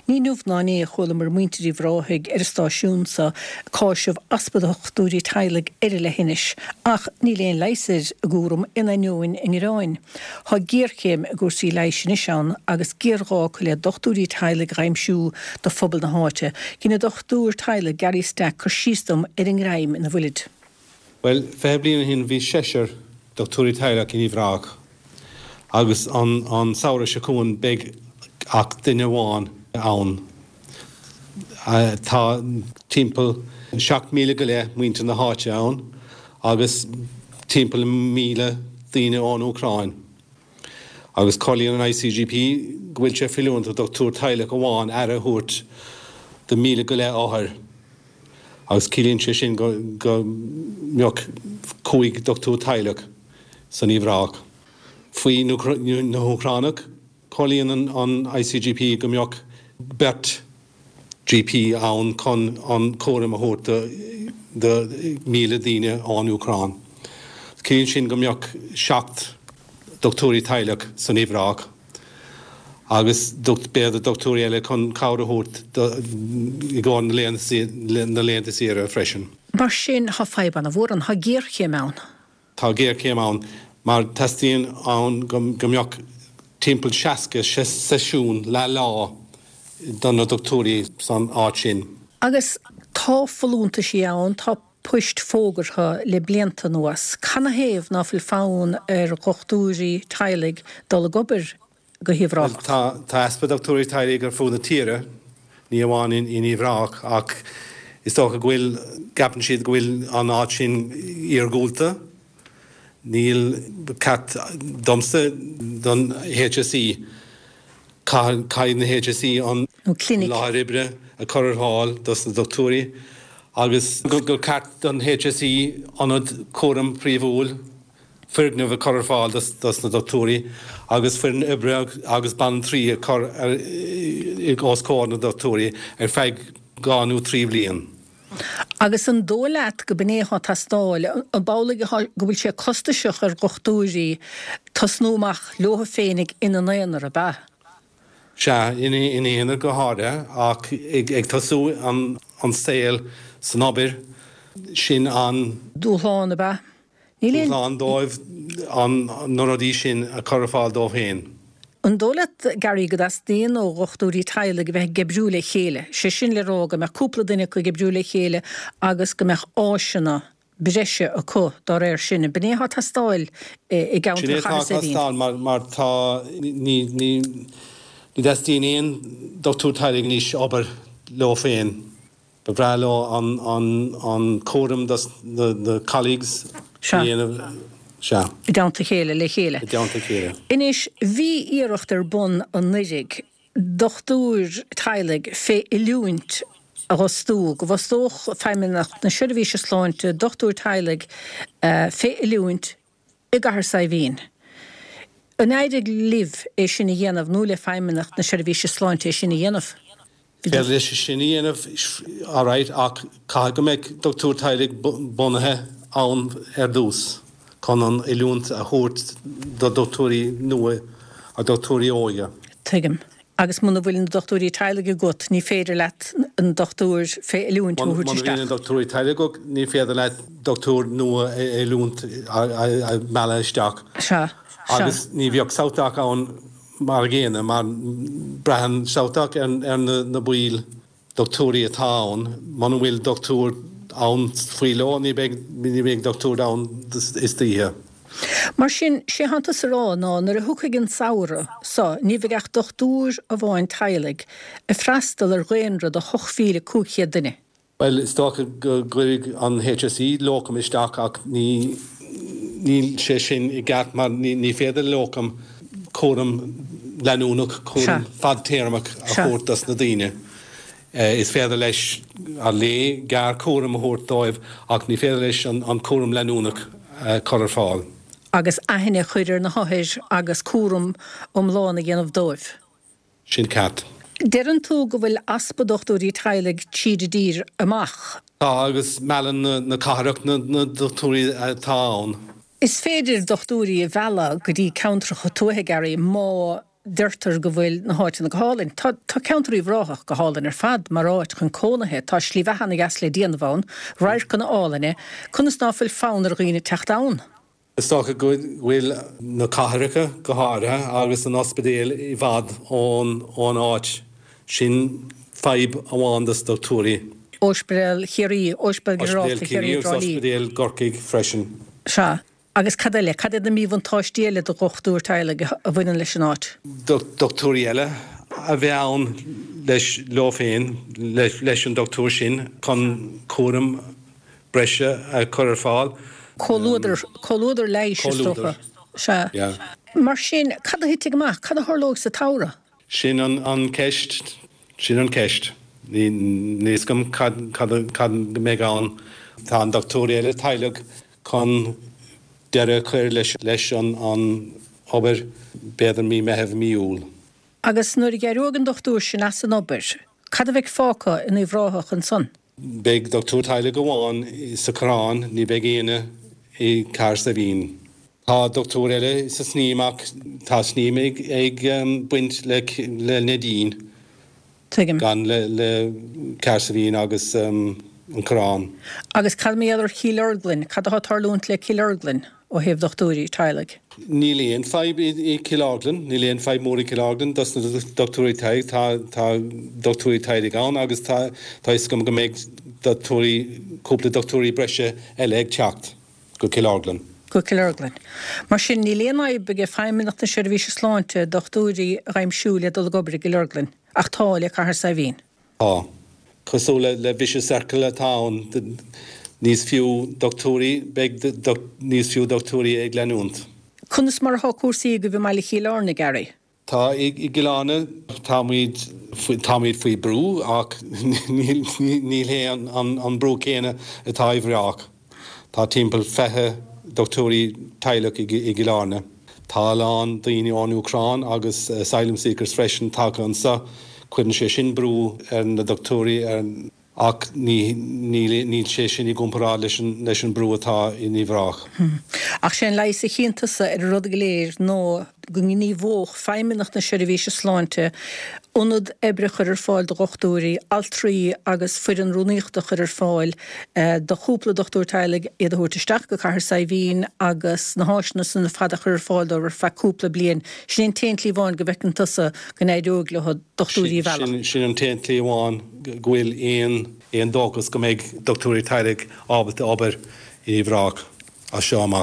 Ní inniu ná inné a chualamar muintir Uíbh Ráthaigh ar an stáisiún so ag cáiseamh easpa dochtúirí teaghlaigh ar an leithinis, ach níl aon leigheas ar a gcúram in ainneoin a ngearáin. Tá géarchéim i gcúrsaí leighis anois ann agus géarghá acu le dochtúirí teaghlaigh a aimsiú do phobal na háite. Dhein an dochtúir teaghlaigh Gary Stack cur síos dom ar an ngreim ina bhfuilid. Bhuel, 20 bliain ó shin bhí seisear dochtúirí teaghlach in Uíbh Ráthach agus an samhradh seo chugainn beidh ach duine amháin ann. Tá timpeall 7,000 go leith muintir na háite ann agus timpeall 1,000 daoine ón Úcráin. Agus comhairlíonn an ICGP go bhfuil sé feiliúnach do dhochtúir teaghlach amháin aire a thabhairt do 1,000 go leith othair. Agus ciallaíonn sé sin go mbeadh 5 dochtúir teaghlach san Uíbh Ráthach. Faoi na hÚcránaigh, comhairlíonn an ICGP go mbeadh beirt GP ann chun an cúram a thabhairt do 1,000 daoine ón Úcráin. Ciallaíonn sin go mbeadh 7 dochtúirí teaghlach san Uíbh Ráthach agus b'fhéidir dochtúirí eile chun cabhair a thabhairt i gcomhair na laethanta saoire freisin. Mar sin, tá fadhb ana-mhór ann, tá géarchéim ann. Tá géarchéim ann mar teastaíonn ann go mbeadh timpeall 60 seisiún leath lá do na dochtúirí san áit sin. Agus tá folúntaisí ann, tá poist fógartha le blianta anuas. Canathaobh ná fuil fonn ar dhochtúirí teaghlaigh dul ag obair go hUíbh Ráthach? Tá tá easpa dochtúirí teaghlaigh ar fud na tíre, ní amháin in Uíbh Ráthach, ach is dócha go bhfuil, gceapann siad go bhfuil an áit sin iargúlta. Níl, ba cheart domsa don HSE, caithfidh na HSE an láthair oibre a chur ar fáil dos na dochtúirí agus gur ceart don HSE ionad cúraim príomhúil, foirgneamh a chur ar fáil dos na dochtúirí agus foireann oibre agus banaltraí a chur os comhair na dochtúirí ar feadh 2 nó 3 bhliain. Agus an dóigh leat go b'in é atá ag teastáil? An amhlaidh go bhfuil sé costasach ar dhochtúirí tosnú amach leo féinig ina n-aonar, ab ea? Sea, ina n-aonar go háirithe, ach ag tosú an saol san obair, sin an. Dúshlán, ab ea? Níl aon. Dúshlán dóibh na rudaí sin a chur ar fáil dóibh féin. An dóigh leat, Gary, go dteastaíonn ó dhochtúirí teaghlaigh a bheith ag oibriú le chéile, sé sin le rá go mbeadh cúpla duine acu ag oibriú le chéile agus go mbeadh áiseanna breise acu dá réir sin. B'in é atá ag teastáil i gceantar Sin é atá Chathair ag Saidhbhín. teastáil mar mar tá ní ní ní dteastaíonn aon dochtúir teaghlaigh anois obair leo féin. Ba bhreá leo an cúram dos na colleagues a dhéanamh. Sea. I dteannta a chéile, le chéile. I dteannta a chéile. Anois, bhí iarracht ar bun anuiridh dochtúir teaghlaigh fé oiliúint a dh'fhostú, go bhfostódh Feidhmeannacht na Seirbhíse Sláinte dochtúir teaghlaigh fé oiliúint i gCathair Saidhbhín. An éirigh libh é sin a dhéanamh nó le Feidhmeannacht na Seirbhíse Sláinte é sin a dhéanamh? Is féidir leis sin a dhéanamh alright ach caithfidh go mbeadh dochtúir teaghlaigh bunaithe ann ar dtús chun an oiliúint a thabhairt do dochtúirí nua a dochtúirí óga. Tuigim. Agus muna bhfuil na dochtúirí teaghlaigh agat ní féidir leat an dochtúir fé oiliúint a thabhairt Muna isteach. bhíonn na dochtúirí teaghlaigh agat ní féidir leat dochtúir nua a oiliúint a mhealladh isteach. Sea. Sea. Agus ní bheadh SouthDoc ann Mar a gcéanna, mar braitheann SouthDoc ar na baill dochtúirí atá ann, muna bhfuil dochtúir ann faoi ló, ní bheidh, ní bheidh dochtúir ann istoíche. Mar sin, sé thánn tusa a rá ná nuair a thiocfaidh an samhradh so, ní bheidh ach dochtúir amháin teaghlaigh ag freastal ar dhaonra de 8,500 duine. Bhuel, is dócha go gcuirfidh an HSE locum isteach ach ní, níl sé sin i gceart mar ní féidir le locum cúram leanúnach, cúram fadtéarmach a thabhairt dos na daoine. Is féidir leis, ar léi, gearr cúram a thabhairt dóibh ach ní féidir leis an cúram leanúnach a chur ar fáil. Agus aithne a chur ar na hothair agus cúram iomlán a dhéanamh dóibh. Sin ceart. Deireann tú go bhfuil easpa dochtúirí teaghlaigh tríd an dtír amach. Tá, agus meallann na cathrach na dochtúirí atá ann. Is féidir dochtúirí a mhealladh go dtí ceantracha tuaithe, Gary, má. Deirtear go bhfuil na háiteanna go hálainn. Tá tá ceantar Uíbh Ráthach go hálainn ar fad mar áit chun cónaithe. Tá slí bheatha ana dheas le déanamh ann, radharcanna álainne. Conas ná fuil fonn ar dhaoine teacht ann? Is dócha go bhfuil na cathracha go háirithe agus an ospidéal i bhfad ón ón áit. Sin fadhb amháin dos dochtúirí. Ospidéal Chiarraí, Ospidéal Ginearálta Chiarraí agus Ospidéal gCorcaigh freisin. Sea. Agus cad eile? Cad iad na míbhuntáistí eile do dhochtúir teaghlaigh a bhaineann leis an áit? Dochtúirí eile a bheith ann leis, leo féin, leis an dochtúir sin chun cúram breise a chur ar fáil. Comhluadar, comhluadar leighis is dócha. Sea. Mar sin, cad a thitfidh amach? Cad a tharlóidh sa tsamhradh? Sin an ceist. Sin an ceist. Níl a fhios agam cad, cad, cad a mbeidh ann. Tá an dochtúir eile teaghlaigh chun deireadh a chur leis, leis an obair, b'fhéidir mí Meitheamh, mí Iúil. Agus nuair a d'éireoidh an dochtúir sin as an obair, cad a bheidh fágtha in Uíbh Ráthach ansan? Beidh dochtúir teaghlaigh amháin sa Choireán, ní bheidh éinne i gCathair Saidhbhín. Tá dochtúir eile sa Sneem ach tá Sneem ag baint le Neidín, Tuigim. gan le Cathair Saidhbhín agus an Coireán. Agus cad mar gheall ar Chill Orglan? Cad atá ag tarlúint le Cill Orglan ó thaobh dochtúirí teaghlaigh? Níl aon fadhb i Cill Orglan, níl aon fadhb mór i Cill Orglan dos na dochtúirí teaghlaigh, tá tá dochtúirí teaghlaigh ann agus tá tá fhios agam go mbeidh dochtúirí, cúpla dochtúirí breise eile ag teacht go Cill Orglan. Go Cill Orglan. Mar sin, níl aon fhadhb ag Feidhmeannacht na Seirbhíse Sláinte dochtúirí a dh'aimsiú le dul ag obair i gCill Orglan, ach tá le Cathair Saidhbhín. Tá. Cosúil le vicious circle atá ann, níos fiú dochtúirí, beidh níos fiú dochtúirí ag leanúint. Conas mar atá cúrsaí agaibh i mbaile Chill Airne, Gary? Tá i gCill Airne, táimid, táimid faoi brú ach níl, níl hé an brú céanna atá i bhFraoch. Tá timpeall 20 dochtúirí teaghlach i gCill Airne. Tá a lán daoine ón Úcráin agus asylum seekers freisin tagtha anseo. Cuireann sé sin brú ar na dochtúirí ach níl sé sin i gcomparáid leis an brú atá in Uíbh Ráthach. Ach sé an leigheas a chíonn tusa ar an rud go léir ná go ngníomhódh Feidhmeannacht na Seirbhíse Sláinte ionad oibre a chur ar fáil do dhochtúirí, altraí agus foireann rúnaíochta a chur ar fáil do chúpla dochtúir teaghlaigh, iad a thabhairt isteach go Cathair Saidhbhín agus na háiseanna san ar fad a chur ar fáil dóibh ar feadh cúpla bliain. Sin é an t-aon tslí amháin go bhfeiceann tusa go n-éireoidh leo dochtúirí a mhealladh. Sin an t-aon tslí amháin go bhfuil aon dóchas go mbeidh dochtúirí teaghlaigh ábalta obair i Uíbh Ráthach as seo amach.